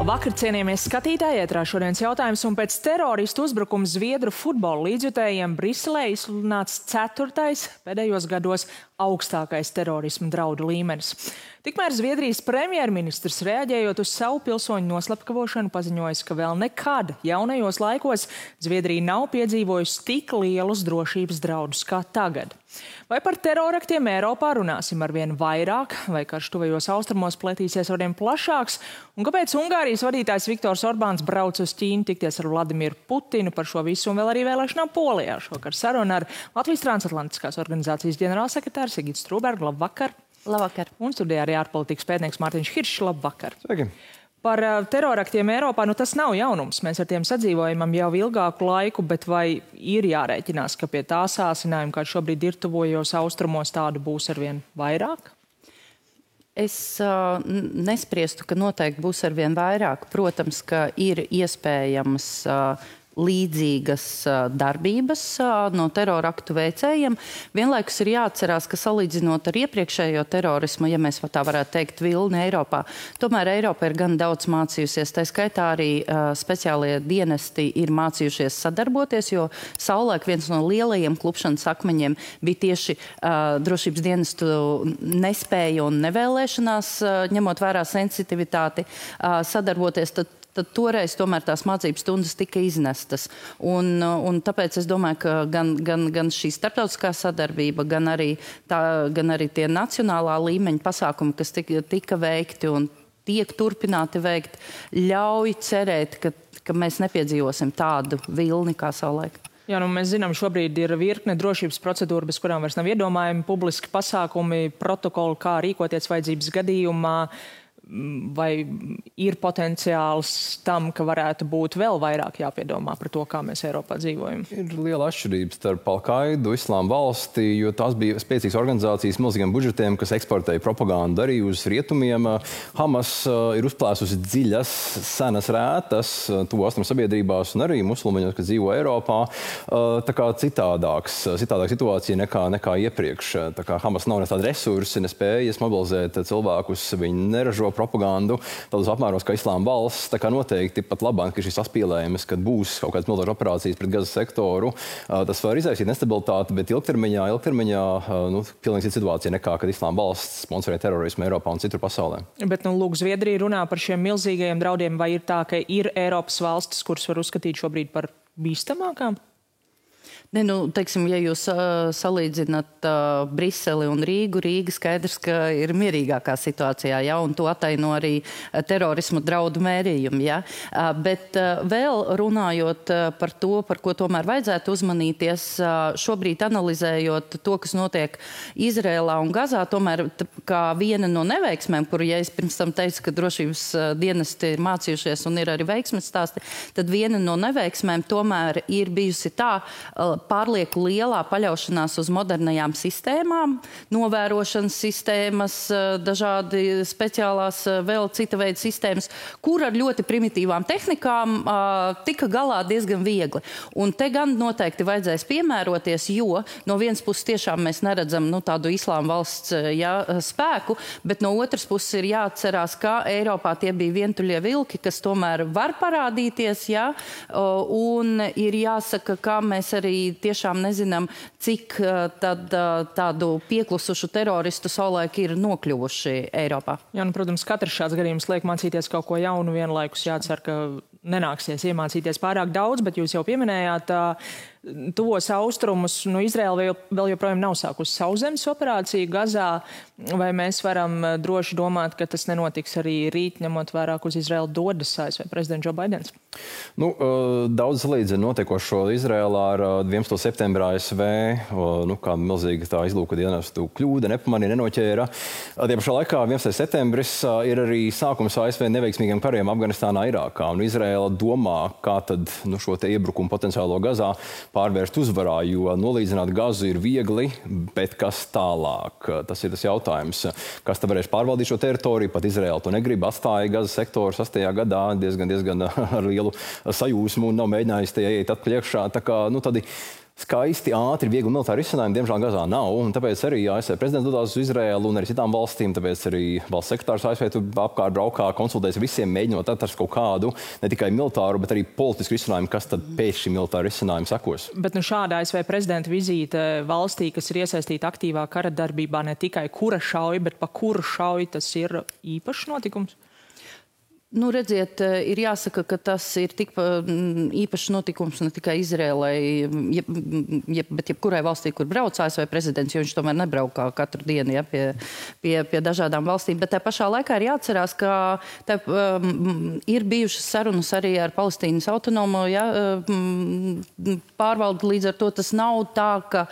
Labvakar, cienījamies skatītāji, ētrā šodienas jautājums, un pēc teroristu uzbrukuma Zviedru futbola līdzjutējiem Briselē izsludināts 4. pēdējos gados augstākais terorisma draudu līmenis. Tikmēr Zviedrijas premjerministrs, reaģējot uz savu pilsoņu noslepkavošanu, paziņojis, ka vēl nekad jaunajos laikos Zviedrija nav piedzīvojusi tik lielus drošības draudus kā tagad. Vai par teroraktiem Eiropā runāsim arvien vairāk, vai karš tuvajos austrumos pletīsies arvien plašāks, un kāpēc Ungārijas vadītājs Viktors Orbāns brauc uz Ķīnu tikties ar Vladimiru Putinu par šo visu un vēl arī vēlēšanām Polijā? Šovakar saruna ar Latvijas transatlantiskās organizācijas ģenerālsekretāru Sigitu Strūbergu. Labvakar! Labvakar! Un studijā arī ārpolitikas pētnieks Mārtiņš Hiršs. Labvakar! Sveiki! Par teroraktiem Eiropā, tas nav jaunums. Mēs ar tiem sadzīvojam jau ilgāku laiku, bet vai ir jārēķinās, ka pie tā sāsinājuma, kā šobrīd ir tuvojos austrumos, tādu būs arvien vairāk? Es nespriestu, ka noteikti būs arvien vairāk. Protams, ka ir iespējams līdzīgas darbības no teroraktu veicējiem. Vienlaikus ir jāatcerās, ka salīdzinot ar iepriekšējo terorismu, ja mēs tā varētu teikt, vilni Eiropā, tomēr Eiropa ir gan daudz mācījusies. Tā skaitā arī speciālie dienesti ir mācījušies sadarboties, jo savulaik viens no lielajiem klupšanas akmeņiem bija tieši drošības dienestu nespēja un nevēlēšanās, ņemot vērā sensitivitāti, sadarboties. Tad toreiz tomēr tās mācības stundas tika iznestas. Un tāpēc es domāju, ka gan šī starptautiskā sadarbība, gan arī tie nacionālā līmeņa pasākumi, kas tika veikti un tiek turpināti veikt, ļauj cerēt, ka mēs nepiedzīvosim tādu vilni kā savulaik. Jā, mēs zinām, šobrīd ir virkne drošības procedūra, bez kurām vairs nav iedomājami publiski pasākumi, protokoli, kā rīkoties vajadzības gadījumā. Vai ir potenciāls tam, ka varētu būt vēl vairāk jāpiedomā par to, kā mēs Eiropā dzīvojam? Ir liela atšķirība starp Al-Qaidu, Islāma valsti, jo tās bija spēcīgas organizācijas milzīgiem budžetiem, kas eksportēja propagandu arī uz rietumiem. Hamas ir uzplēsusi dziļas, senas rētas, tuvu austrumu sabiedrībās un arī musulmaņos, kas dzīvo Eiropā. Tā kā citādāka situācija nekā iepriekš. Tā kā Hamas nav ne tādi resursi, nespējas mobilizēt cilvēkus, viņi neražo propagandu tādos apmēros kā Islāma valsts. Tā kā noteikti pat labāk, ka šis saspīlējums, kad būs kaut kādas militāras operācijas pret Gazas sektoru, tas var izraisīt nestabilitāti, bet ilgtermiņā pilnīgi cita situācija nekā, kad Islāma valsts sponsorē terorismu Eiropā un citur pasaulē. Bet, lūk, Zviedrija runā par šiem milzīgajiem draudiem, vai ir tā, ka ir Eiropas valstis, kuras var uzskatīt šobrīd par bīstamākām? Ne, teiksim, ja jūs salīdzināt Briseli un Rīgu, Rīga skaidrs, ka ir mierīgākā situācijā, ja, un to ataino arī terorismu draudu mērījumi. Ja. Bet vēl runājot par to, par ko tomēr vajadzētu uzmanīties, šobrīd analizējot to, kas notiek Izrēlā un Gazā, tomēr kā viena no neveiksmēm, kuru, ja es pirms tam teicu, ka drošības dienesti ir mācījušies un ir arī veiksmes stāsti, tad viena no neveiksmēm tomēr ir bijusi tā, pārlieku lielā paļaušanās uz modernajām sistēmām, novērošanas sistēmas, dažādi speciālās vēl cita veida sistēmas, kur ar ļoti primitīvām tehnikām tika galā diezgan viegli. Un te gan noteikti vajadzēs piemēroties, jo no vienas puses tiešām mēs neredzam tādu Islāma valsts spēku, bet no otras puses ir jāatcerās, ka Eiropā tie bija vientuļie vilki, kas tomēr var parādīties, un ir jāsaka, ka mēs arī tiešām nezinām, cik tādu pieklusušu teroristu savulaik ir nokļuvuši Eiropā. Jā, protams, katrs šāds gadījums liek mācīties kaut ko jaunu, vienlaikus jācer, ka nenāksies iemācīties pārāk daudz, bet jūs jau pieminējāt tuvos austrumus. Izraela vēl joprojām nav sākusi sauszemes operāciju Gazā. Vai mēs varam droši domāt, ka tas nenotiks arī rīt, ņemot vērā, uz Izraelu dodas ASV prezidents Joe Baidens? Daudz salīdzina notiekošo Izraēlā ar 11. septembrā ASV, kā milzīga tā izlūka dienestu kļūda, nepamanīja, nenoķēra. Tie pašā laikā 11. septembris ir arī sākums ASV neveiksmīgiem kariem Afganistānā, Irākā. Un Izraēla domā, kā tad šo te iebrukumu potenciālo Gazā pārvērst uzvarā, jo nolīdzināt Gazu ir viegli, bet kas tālāk? Tas ir tas jautājums. Kas te varēs pārvaldīt šo teritoriju? Pat Izraēla to negrib, atstāja Gazas sektoru 8. gadā diezgan ar lielu sajūsmu un nav mēģinājis tie ieiet atpakaļ iekšā. Tā kā, tādi skaisti, ātri, viegli militāri risinājumi, diemžēl Gazā nav. Un tāpēc arī ASV prezidents dodās uz Izraēlu un arī citām valstīm. Tāpēc arī valsts sekretārs ASV tur apkārt braukā, konsultējas visiem, mēģinot atrast kaut kādu ne tikai militāru, bet arī politisku risinājumu, kas tad pēc šī militāra risinājuma sekos. Bet šāda ASV prezidenta vizīte valstī, kas ir iesaistīta aktīvā kara darbībā, ne tikai kura šauj, bet pa kuru šauj, tas ir īpašs notikums? Nu, redziet, ir jāsaka, ka tas ir tik īpašs notikums ne tikai Izrēlai, bet jebkurai valstī, kur brauc ASV prezidents, jo viņš tomēr nebraukā katru dienu pie dažādām valstīm. Bet tā pašā laikā ir jāatcerās, ka ir bijušas sarunas arī ar Palestīnas autonomo pārvaldi. Līdz ar to tas nav tā, ka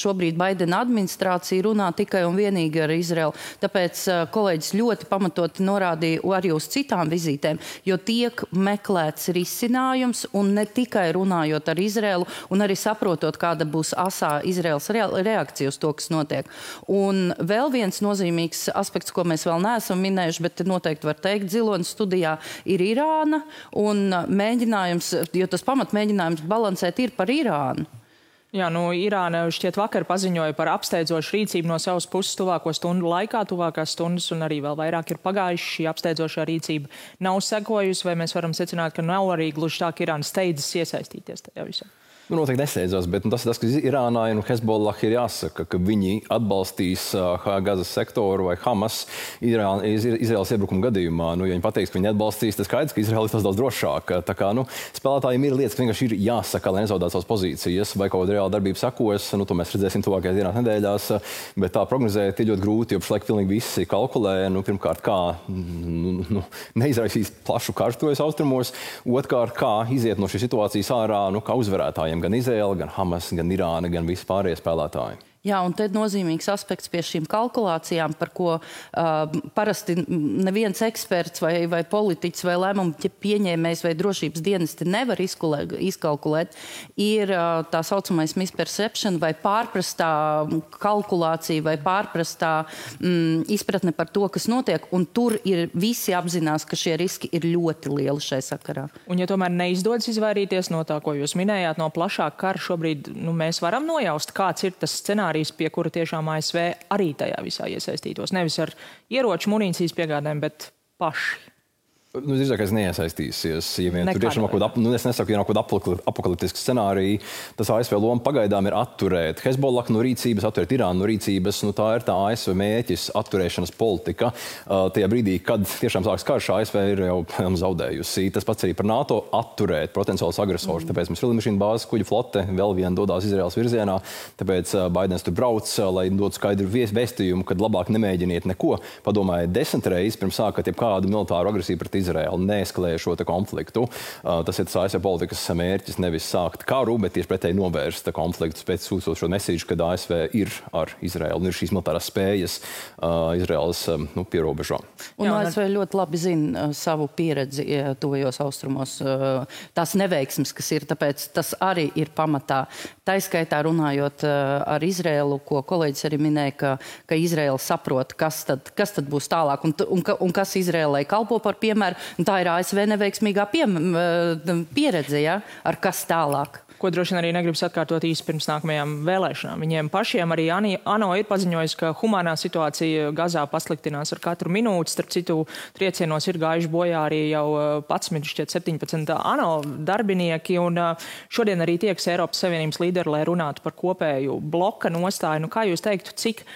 šobrīd Baidena administrācija runā tikai un vienīgi ar Izraelu. Tāpēc kolēģis ļoti pamatoti norāda arī uz citām vizītēm, jo tiek meklēts risinājums un ne tikai runājot ar Izraelu un arī saprotot, kāda būs asā Izraels reakcija uz to, kas notiek. Un vēl viens nozīmīgs aspekts, ko mēs vēl neesam minējuši, bet noteikti var teikt Zilonas studijā, ir Irāna un mēģinājums, jo tas pamatmēģinājums balansēt ir par Irānu. Jā, Irāna šķiet vakar paziņoja par apsteidzošu rīcību no savas puses tuvāko stundu laikā, tuvākās stundas, un arī vēl vairāk ir pagājuši. Šī apsteidzošā rīcība nav sekojusi, vai mēs varam secināt, ka nav arī gluži tā, ka Irāna steidzas iesaistīties tajā visā? Noteikti nesteidzās, bet tas, ka Irānai un Hezbollah ir jāsaka, ka viņi atbalstīs Gazas sektoru vai Hamas Izraēlas iebrukuma gadījumā. Ja viņi pateiks, ka viņi atbalstīs, tad skaidrs, ka Izraēla ir tas daudz drošāk. Tā kā spēlētājiem ir lietas, ka vienkārši ir jāsaka, lai nezaudētu savas pozīcijas, vai kaut kāda reāla darbība sekos. To mēs redzēsim tuvākajās dienās, nedēļās. Bet tā prognozēt ir ļoti grūti, jo pašlaik pilnīgi visi kalkulē. Pirmkārt, kā neizraisīs plašu kartuves austrumos. Otrkārt, kā iziet no šīs situācijas ārā, kā uzvarētājiem. Gan Izraela, gan Hamas, gan Irāna, gan visi pārējie spēlētāji. Jā, un te nozīmīgs aspekts pie šīm kalkulācijām, par ko parasti neviens eksperts vai politiķis vai lēmumu pieņēmējs vai drošības dienesti nevar izkalkulēt, ir tā saucamais misperception vai pārprastā kalkulācija vai pārprastā izpratne par to, kas notiek, un tur ir visi apzinās, ka šie riski ir ļoti lieli šai sakarā. Un ja tomēr neizdodas izvairīties no tā, ko jūs minējāt, no plašāka kara šobrīd, mēs varam nojaust, kāds ir tas scenārijs, pie kura tiešām ASV arī tajā visā iesaistītos. Nevis ar ieroču munīcijas piegādēm, bet paši. Drīzākais neiesaistīsies. Ja vien tur tiešām es nesaku, ja nav kaut kāda apokaliptiska scenārija, tas ASV loma pagaidām ir atturēt Hezbollah no rīcības, atturēt Irānu no rīcības. Tā ir tā ASV mēķis, atturēšanas politika. Tajā brīdī, kad tiešām sāks karš, ASV ir jau zaudējusi. Tas pats arī par NATO atturēt potenciālus agresorus. Tāpēc mums ir lidmašīnu bāzes kuģu flote, vēl viena dodās Izraēlas virzienā. Tāpēc Baidens tur brauc, lai dotu skaidru vēstījumu, kad labāk nemēģiniet neko. Padomājiet 10 reizes pirms sākat jebkādu militāru agresiju pret Izraēlu, neeskalēja šo konfliktu. Tas ir tas ASV politikas mērķis, nevis sākt karu, bet tieši pretēji novērst konfliktus pēc sūtot šo mesīžu, kad ASV ir ar Izraēlu un ir šīs militārās spējas Izraēlas pierobežā. Un ASV ļoti labi zina savu pieredzi tuvajos austrumos, tās neveiksmes, kas ir, tāpēc tas arī ir pamatā. Taiskaitā runājot ar Izraēlu, ko kolēģis arī minēja, ka Izraēla saprot, kas tad būs tālāk un kas Izraēlai kalpo par piemēru. Tā ir ASV neveiksmīgā pieredze, ar kas tālāk. Ko droši vien arī negribas atkārtot īsi pirms nākamajām vēlēšanām. Viņiem pašiem arī ANO ir paziņojis, ka humānā situācija Gazā pasliktinās ar katru minūti. Starp citu, triecienos ir gājuši bojā arī jau 17 ANO darbinieki. Un šodien arī tieks Eiropas Savienības līderi, lai runātu par kopēju bloka nostāju. Kā jūs teiktu, cik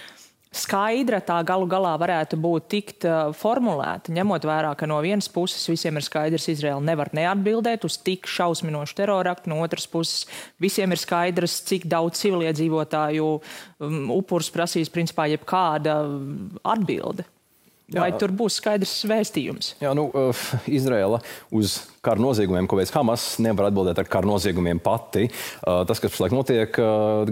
skaidra tā galu galā varētu būt tikt formulēta, ņemot vērā, ka no vienas puses visiem ir skaidrs, Izraela nevar neatbildēt uz tik šausminošu teroraktu, no otras puses visiem ir skaidrs, cik daudz civiliedzīvotāju upurus prasīs principā jebkāda atbilde. Vai tur būs skaidrs vēstījums? Jā, Izraela uz kara noziegumiem, ko veids Hamas, nevar atbildēt ar kara noziegumiem pati. Tas, kas pašlaik notiek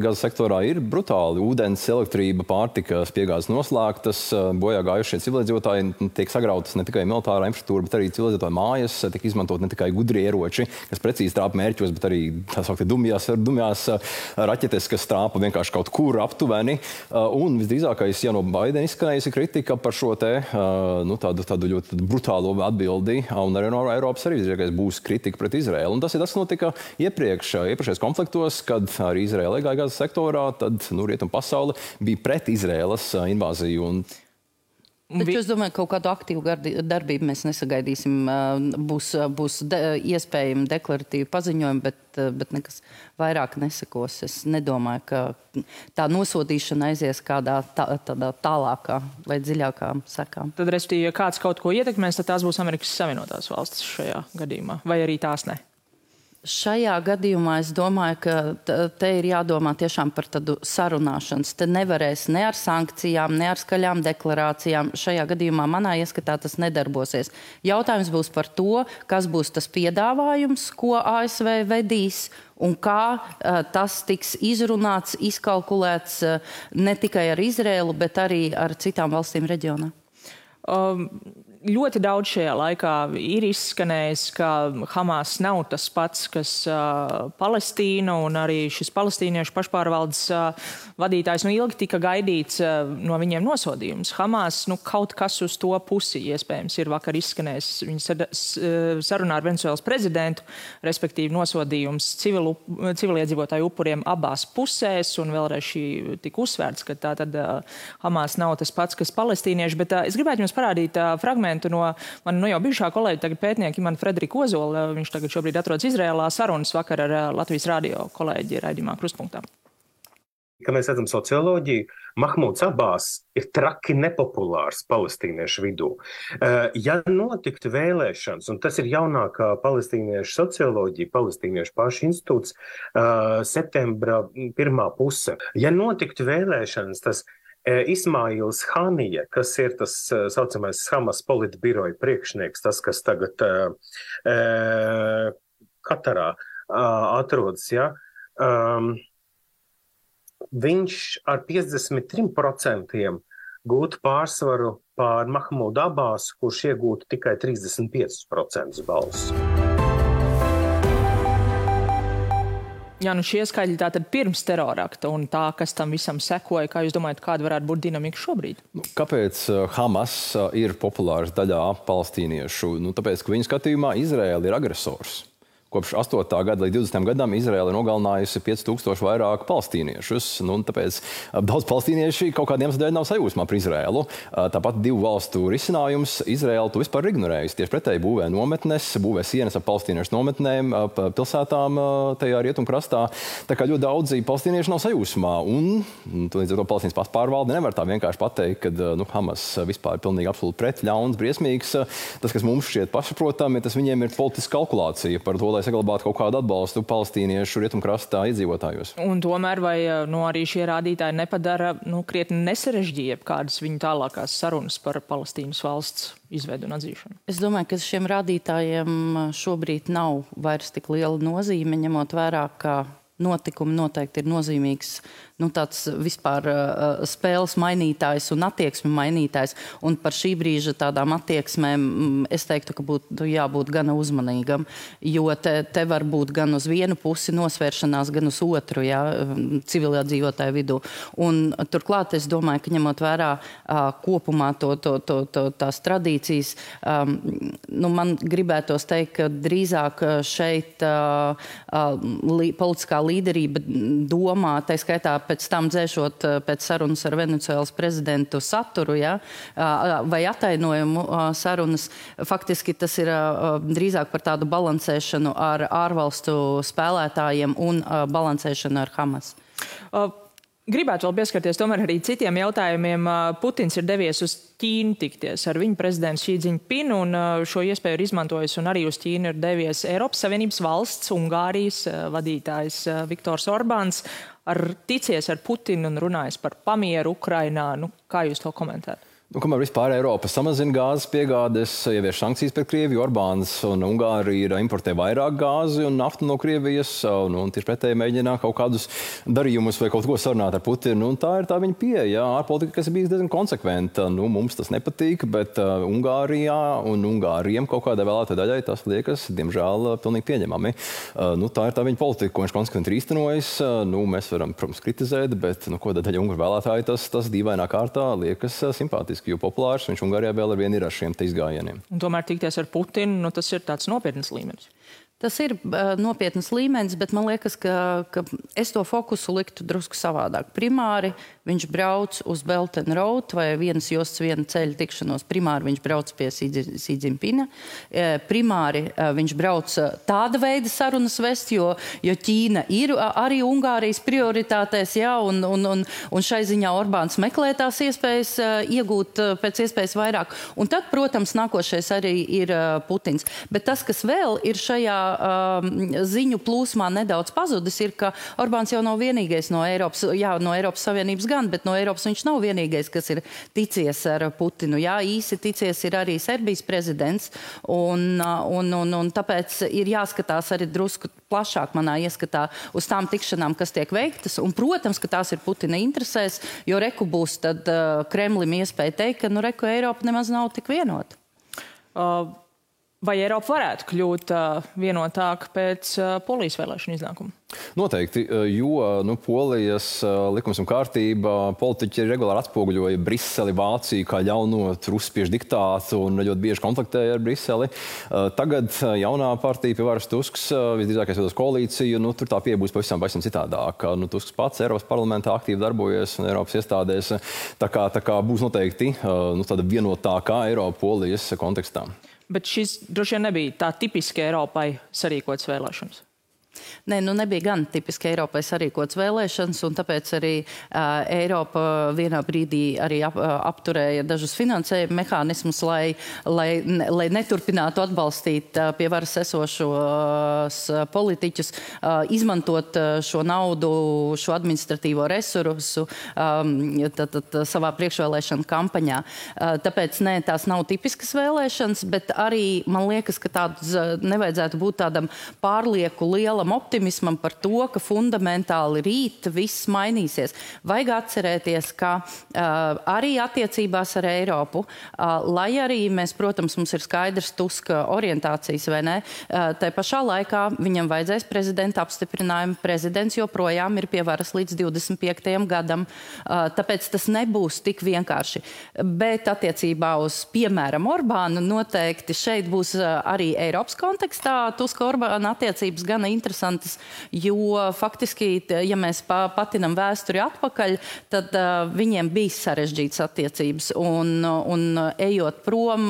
Gazas sektorā, ir brutāli. Ūdens, elektrība, pārtikas piegādes noslēgtas, bojā gājušie civiliedzīvotāji, tiek sagrautas ne tikai militārā infrastruktūra, bet arī civiliedzīvotāju mājas, tiek izmantot ne tikai gudri ieroči, kas precīzi trāpa mērķos, bet arī tā sauktie dumjās raķetes, kas trāpa vienkārši kaut kur aptuveni. Un visdrīzākais, ja no Baidena izskanējusi kritika par šo te tādu ļoti brutālo atbildi, un arī no Eiropas arī būs kritika pret Izraēlu. Un tas ir tas, kas notika iepriekšējos konfliktos, kad arī Izraēla iegāja Gazas sektorā, tad rietumu pasaule bija pret Izraēlas invāziju. Taču es domāju, ka kaut kādu aktīvu darbību mēs nesagaidīsim. Būs iespējami deklaratīvi paziņojumi, bet nekas vairāk nesakos. Es nedomāju, ka tā nosodīšana aizies kādā tādā tālākā vai dziļākā sekā. Tad, respektīvi, ja kāds kaut ko ietekmēs, tad tās būs Amerikas Savienotās valstis šajā gadījumā, vai arī tās ne? Šajā gadījumā es domāju, ka te ir jādomā tiešām par tādu sarunāšanas. Te nevarēs ne ar sankcijām, ne ar skaļām deklarācijām. Šajā gadījumā manā ieskatā tas nedarbosies. Jautājums būs par to, kas būs tas piedāvājums, ko ASV vedīs, un kā tas tiks izrunāts, izkalkulēts ne tikai ar Izraēlu, bet arī ar citām valstīm reģionā. Ļoti daudz šajā laikā ir izskanējis, ka Hamas nav tas pats, kas Palestīna, un arī šis palestīniešu pašpārvaldes vadītājs ilgi tika gaidīts no viņiem nosodījums. Hamas, kaut kas uz to pusi iespējams ir vakar izskanējis. Viņa sarunā ar Venecuēlas prezidentu, respektīvi nosodījums civiliedzīvotāju upuriem abās pusēs, un vēlreiz šī tika uzsvērts, ka tā tad Hamas nav tas pats, kas palestīnieši, bet es gribētu jums parādīt fragmentu no mana jau bijušā kolēģa, tagad pētnieka Imanta Frederika Ozola. Viņš tagad šobrīd atrodas Izrēlā, sarunas vakar ar Latvijas radio kolēģi raidījumā Krustpunktā. Kad mēs redzam socioloģiju, Mahmuds Abās ir traki nepopulārs palestīniešu vidū. Ja notiktu vēlēšanas, un tas ir jaunākā palestīniešu socioloģija, palestīniešu pašu institūts, septembra pirmā puse, ja notiktu vēlēšanas, tas Ismails Hanija, kas ir tas saucamais Hamas politbiroja priekšnieks, tas, kas tagad Katarā atrodas, ja, viņš ar 53% gūtu pārsvaru pār Mahmudu Abāsu, kurš iegūtu tikai 35% balsu. Jā, šie skaļi tātad pirms terorakta un tā, kas tam visam sekoja, kā jūs domājat, kāda varētu būt dinamika šobrīd? Kāpēc Hamas ir populārs daļā palestīniešu? Tāpēc, ka viņu skatījumā Izraēla ir agresors. Kopš 8. gada līdz 20. gadam Izraēla nogalinājusi 5000 vairāk palestīniešus. Tāpēc daudz palestīnieši kaut kādiem dēļ nav sajūsmā par Izraēlu. Tāpat divu valstu risinājums Izraēla to vispār ignorējusi. Tieši pretēji būvē nometnes, būvē sienas ar palestīniešu nometnēm, pilsētām tajā rietumkrastā. Tā kā ļoti daudzi palestīnieši nav sajūsmā. Un līdz ar to Palestīnas pašpārvalde nevar tā vienkārši pateikt, ka Hamas vispār ir pilnīgi absolūti pret, ļauns, briesmīgs. Tas, kas mums šķiet pašsaprotami, tas viņiem ir politiska kalkulācija par to, lai saglabātu kaut kādu atbalstu palestīniešu rietumkrastā iedzīvotājos. Un tomēr vai arī šie rādītāji nepadara krietni nesarežģīja kādas viņu tālākās sarunas par Palestīnas valsts izveidu un atzīšanu? Es domāju, ka šiem rādītājiem šobrīd nav vairs tik liela nozīme, ņemot vērā, ka notikumi noteikti ir nozīmīgs tāds vispār spēles mainītājs un attieksmi mainītājs. Un par šī brīža tādām attieksmēm es teiktu, ka būtu jābūt gana uzmanīgam, jo te var būt gan uz vienu pusi nosvēršanās, gan uz otru, civilizētāju vidū. Un turklāt es domāju, ka ņemot vērā kopumā tās tradīcijas, man gribētos teikt, ka drīzāk šeit politiskā līderība domā, tā skaitā pēc tam dzēšot pēc sarunas ar Venecuēlas prezidentu saturu, vai atainojumu sarunas. Faktiski tas ir drīzāk par tādu balansēšanu ar ārvalstu spēlētājiem un balansēšanu ar Hamas. Gribētu vēl pieskarties tomēr arī citiem jautājumiem. Putins ir devies uz Ķīnu tikties ar viņu prezidentu Xi Jinpingu, un šo iespēju ir izmantojis, un arī uz Ķīnu ir devies Eiropas Savienības valsts, Ungārijas vadītājs Viktors Orbāns, ticies ar Putinu un runājis par pamieru Ukrainā. Kā jūs to komentējat? Kamēr vispār Eiropa samazina gāzes piegādes, ievieš sankcijas pret Krieviju, Orbāns un Ungārija importē vairāk gāzi un naftu no Krievijas, un tieši pretēji mēģina kaut kādus darījumus vai kaut ko sarunāt ar Putinu. Tā ir tā viņa pieeja, ārpolitika, kas ir bijis diezgan konsekventa. Mums tas nepatīk, bet Ungārijā un Ungāriem kaut kādai vēlētāju daļai tas liekas, diemžēl, pilnīgi pieņemami. Tā ir tā viņa politika, ko viņš konsekventi ir īstenojis. Mēs varam, protams, kritizēt, bet ko daļai Ungāru vēlētāji tas dīvainā kārtā liekas simpātiski. fantastiski, jo populārs viņš Ungārijā vēl ar vienu ir ar šiem te izgājieniem. Un tomēr tikties ar Putinu, nu, tas ir tāds nopietns līmenis. Tas ir nopietnas līmenis, bet man liekas, ka es to fokusu liktu drusku savādāk. Primāri viņš brauc uz Belt and Road vai vienas jostas viena ceļa tikšanos. Primāri viņš brauc pie Xi Jinpinga. Primāri viņš brauc tāda veida sarunas vest, jo Ķīna ir arī Ungārijas prioritātēs, jā, un šai ziņā Orbāns meklē tās iespējas iegūt pēc iespējas vairāk. Un tad, protams, nākošais arī ir Putins. Bet tas, kas vēl ir šajā ziņu plūsmā nedaudz pazudis, ir, ka Orbāns jau nav vienīgais no Eiropas Savienības gan, bet no Eiropas viņš nav vienīgais, kas ir ticies ar Putinu. Jā, īsi ticies ir arī Serbijas prezidents, un tāpēc ir jāskatās arī drusku plašāk manā ieskatā uz tām tikšanām, kas tiek veiktas, un, protams, ka tās ir Putina interesēs, jo reku būs tad Kremlim iespēja teikt, ka, reku Eiropa nemaz nav tik vienota. Vai Eiropa varētu kļūt vienotāka pēc Polijas vēlēšanu iznākuma? Noteikti, jo Polijas likums un kārtība politiķi regulāri atspoguļoja Briseli, Vāciju kā ļauno ruspiešu diktātu un ļoti bieži konfliktēja ar Briseli. Tagad jaunā partija pie varas Tusks, visdrīzākais veidos koalīciju, tur tā pieeja būs pavisam citādāk. Tusks pats Eiropas parlamentā aktīvi darbojas un Eiropas iestādēs. Tā kā būs noteikti tāda vienotākā Eiropa Polijas kontekstā. Bet šis droši vien nebija tā tipiski Eiropai sarīkots vēlēšanas. Nē, nebija gan tipiski Eiropai sarīkots vēlēšanas, un tāpēc arī Eiropa vienā brīdī arī apturēja dažus finansējuma mehānismus, lai neturpinātu atbalstīt pie varas esošos politiķus, izmantot šo naudu, šo administratīvo resursu savā priekšvēlēšana kampaņā. Tāpēc, tās nav tipiskas vēlēšanas, bet arī man liekas, ka tāds nevajadzētu būt tādam pārlieku lielam optimismam par to, ka fundamentāli rīt viss mainīsies. Vajag atcerēties, ka arī attiecībās ar Eiropu, lai arī mēs, protams, mums ir skaidrs Tuska orientācijas, vai ne, tai pašā laikā viņam vajadzēs prezidenta apstiprinājumu. Prezidents joprojām ir pie varas līdz 25. gadam, tāpēc tas nebūs tik vienkārši. Bet attiecībā uz, piemēram, Orbānu noteikti šeit būs arī Eiropas kontekstā Tuska-Orbāna attiecības gana interesantas, jo faktiski, ja mēs patinam vēsturi atpakaļ, tad viņiem bija sarežģītas attiecības. Un ejot prom,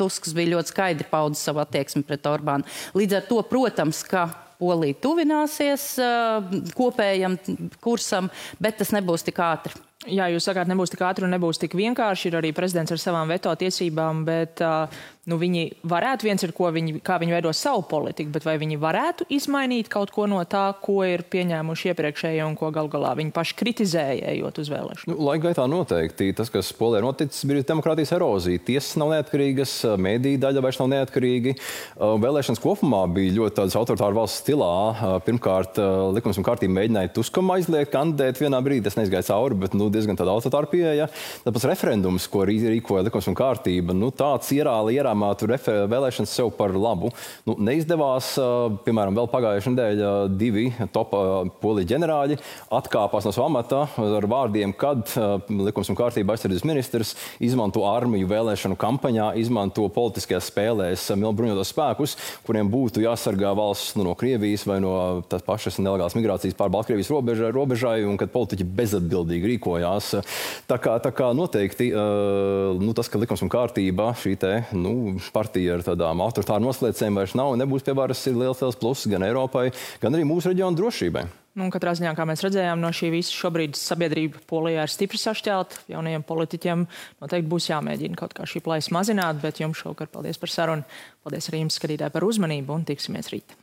Tusks bija ļoti skaidri paudis savu attieksmi pret Orbānu. Līdz ar to, protams, ka Polija tuvināsies kopējam kursam, bet tas nebūs tik ātri. Jā, jūs sakāt, nebūs tik ātri un nebūs tik vienkārši. Ir arī prezidents ar savām veto tiesībām, bet viņi varētu, viens ir, kā viņi veido savu politiku, bet vai viņi varētu izmainīt kaut ko no tā, ko ir pieņēmuši iepriekšējie un ko gal galā viņi paši kritizēja, ejot uz vēlēšanu? Laika gaitā noteikti. Tas, kas Polijā noticis, bija demokrātijas erozija. Tiesas nav neatkarīgas, mēdīja daļa vairs nav neatkarīgi. Vēlēšanas kopumā bija ļoti tādas autoritāra valsts stilā. Pirmkārt, likums un kārtība mēģināja Tuskam aizliegt kandidēt vienā brīdī. Tas neizgāja cauri, bet diezgan tāda autoritāra pieeja. Tāpēc referendums, ko rīkoja likums un kārtība, tāds ierāmātu vēlēšanas sev par labu. Neizdevās, piemēram, vēl pagājušajā nedēļā 2 top Polijas ģenerāļi atkāpās no savu amata ar vārdiem, kad likums un kārtība aizsardzības ministrs izmanto armiju vēlēšanu kampaņā, izmanto politiskajās spēlēs bruņotos spēkus, kuriem būtu jāsargā valsts no Krievijas vai no tās pašas nelegālas migrācijas pār Baltkrievijas robežai, un kad politiķi bezatbildīgi rīkoja. Tā kā noteikti tas, ka likums un kārtība šī partija ar tādām autoritāru noslēdzēm vairs nav un nebūs pie varas, ir liels pluss gan Eiropai, gan arī mūsu reģionu drošībai. Katrā ziņā, kā mēs redzējām, no šī visa šobrīd sabiedrība Polijā ir stipri sašķelta. Jaunajiem politiķiem noteikti būs jāmēģina kaut kā šī plaisa mazināt, bet jums šovakar paldies par sarunu. Paldies arī jums, skatītāji, par uzmanību un tiksimies rīt.